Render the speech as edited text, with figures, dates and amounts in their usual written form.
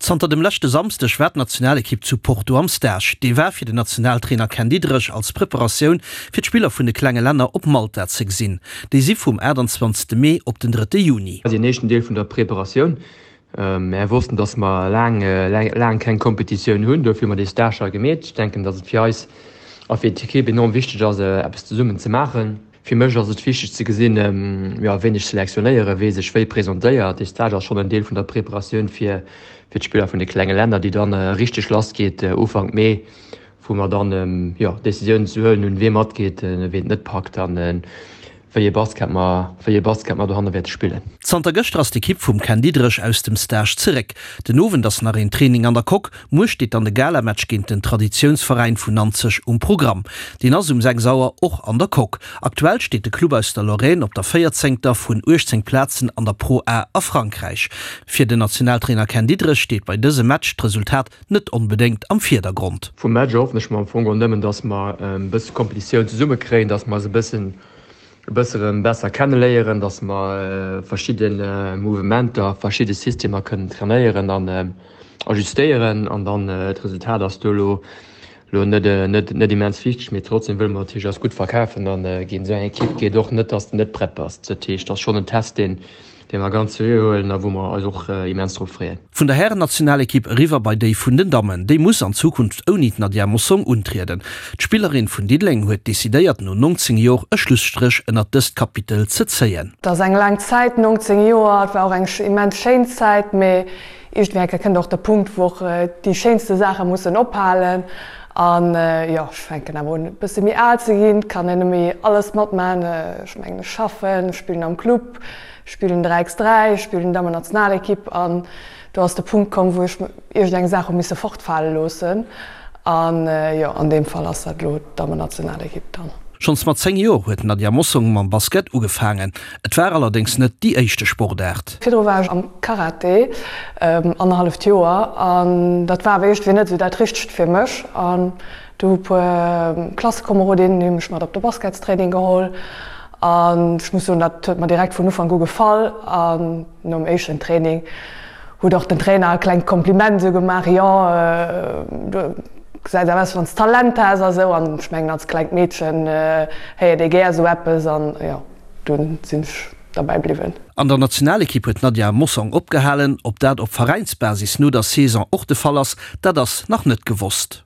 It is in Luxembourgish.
Zanter dem leschte Samsdeg war d'Nationalekipp zu Porto am Stage. Dee war fir den Nationaltrainer Ken Diederich als Preparatioun fir d'Spiller vun de klenge Länner op Malta ze gesinn. Déi si vum 28 Mee op den 3 Juni. Deen éischten Deel vun der Preparatioun. Mär wossten, dass mer laang, laang keng Kompetitioun hunn, dofir hu mer dee Stage hei gemeet. Ech denken, dass et fir eis a fir d'Ekipp enorm wichteg ass, eppes zesummen ze maachen. Fir mech ass et wichteg ze gesinn, jo, ween ech selektionéieren, wee sech wéi presentéiert. Dee Stage ass schonn en Deel vun der Preparatioun fir fir d'Spiller vun de klenge Länner, déi dann richteg lass geet Ufank Mee, wou mer dann, jo, Decisiounen ze huelen hunn, wee matgeet, ween et net packt an wéi ee Basket mer, wéi ee Basket mer dohanne wäerte spillen. Zanter gëschter ass d'Ekipp vum Ken Diederich aus dem Stage zeréck. Den Owend ass nach een Training an der Coque. Muer steet dann de Galamatch géint den Traditiounsveräin vun Nanzeg um Programm. Deen ass um 6 Auer och an der Coque. Aktuell steet de Club aus der Lorraine op der véierzéngter vun 18 Plazen an der Pro A a Frankräich. Fir den Nationaltrainer Ken Diederich steet bei dësem Match d'Resultat net onbedéngt am Virdergrond. Vum Match erhoffen ech mer am Fong och nëmmen, dass mer e bësse Kompetitioun zesumme kréien, dass mer eis e bëssen e bësse rëm besser kenneléieren, dass mer verschidde Mouvementer, verschidde Systemer kënnen trainéieren an ajustéieren an dann d'Resultat ass do elo elo net net net immens wichteg, mee trotzdem wëlle mer natierlech eis gutt verkafen an géint esou eng Ekipp geet och net, dass de net prett bass. Dat heescht, ass schonn en Test deen dee mer ganz seriö huelen a wou mer eis och immens drop freeën. Vun der Härennationalekipp eriwwer bei déi vun den Dammen. Déi muss an Zukunft ouni d'Nadia Mossong untrieden. D'Spillerin vun Diddeleng huet decidéiert no 19 Jor e Schlusstréch ënnert dëst Kapitel ze zéien. Et ass eng laang Zäit, 19 Joer. Et war och eng immens schéin Zäit, mee iergendwéi eng Kéier kënnt och de Punkt, wou och déi schéinste Saache mussen ophalen. An jo, ech fänken awer un e bësse méi al ze ginn, et kann een net méi alles matmaachen. Ech mengen, ech schaffen, ech spillen am Club, ech spillen 3 x 3, ech spillen Dammennationalekipp an do ass de Punkt komm, wou ech iergendeng Saach hu misse fortfale loossen. An jo, an deem Fall ass dat elo d'Dammennationalekipp dann. Schonns mat 10 Joer huet d'Nadia Mossong mam Basket ugefaangen. Et war allerdéngs net déi éischte Sportaart. Virdru war ech am Karate, annerhalleft Joer, an dat war awer iergendwéi net esou dat Richtegt fir mech. An du hu puer Klassekomerodinnen hu mech mat op de Basketstraining geholl an ech muss soen, dat huet mer direkt vun Ufank u gefall. An nom éischten Training huet och den Trainer e klengt Kompliment esou gemaach, jo du gesäis awer aus, wann s Talent häss a sou. An ech mengen als klengt Meedchen héiert ee gär esou eppes an jo. Dunn sinn ech derbäi bliwwen. An der Nationalekipp huet d'Nadia Mossong opgehalen. Ob dat op Veräinsbasis no der Saison och de Fall ass, dat ass nach net gewosst.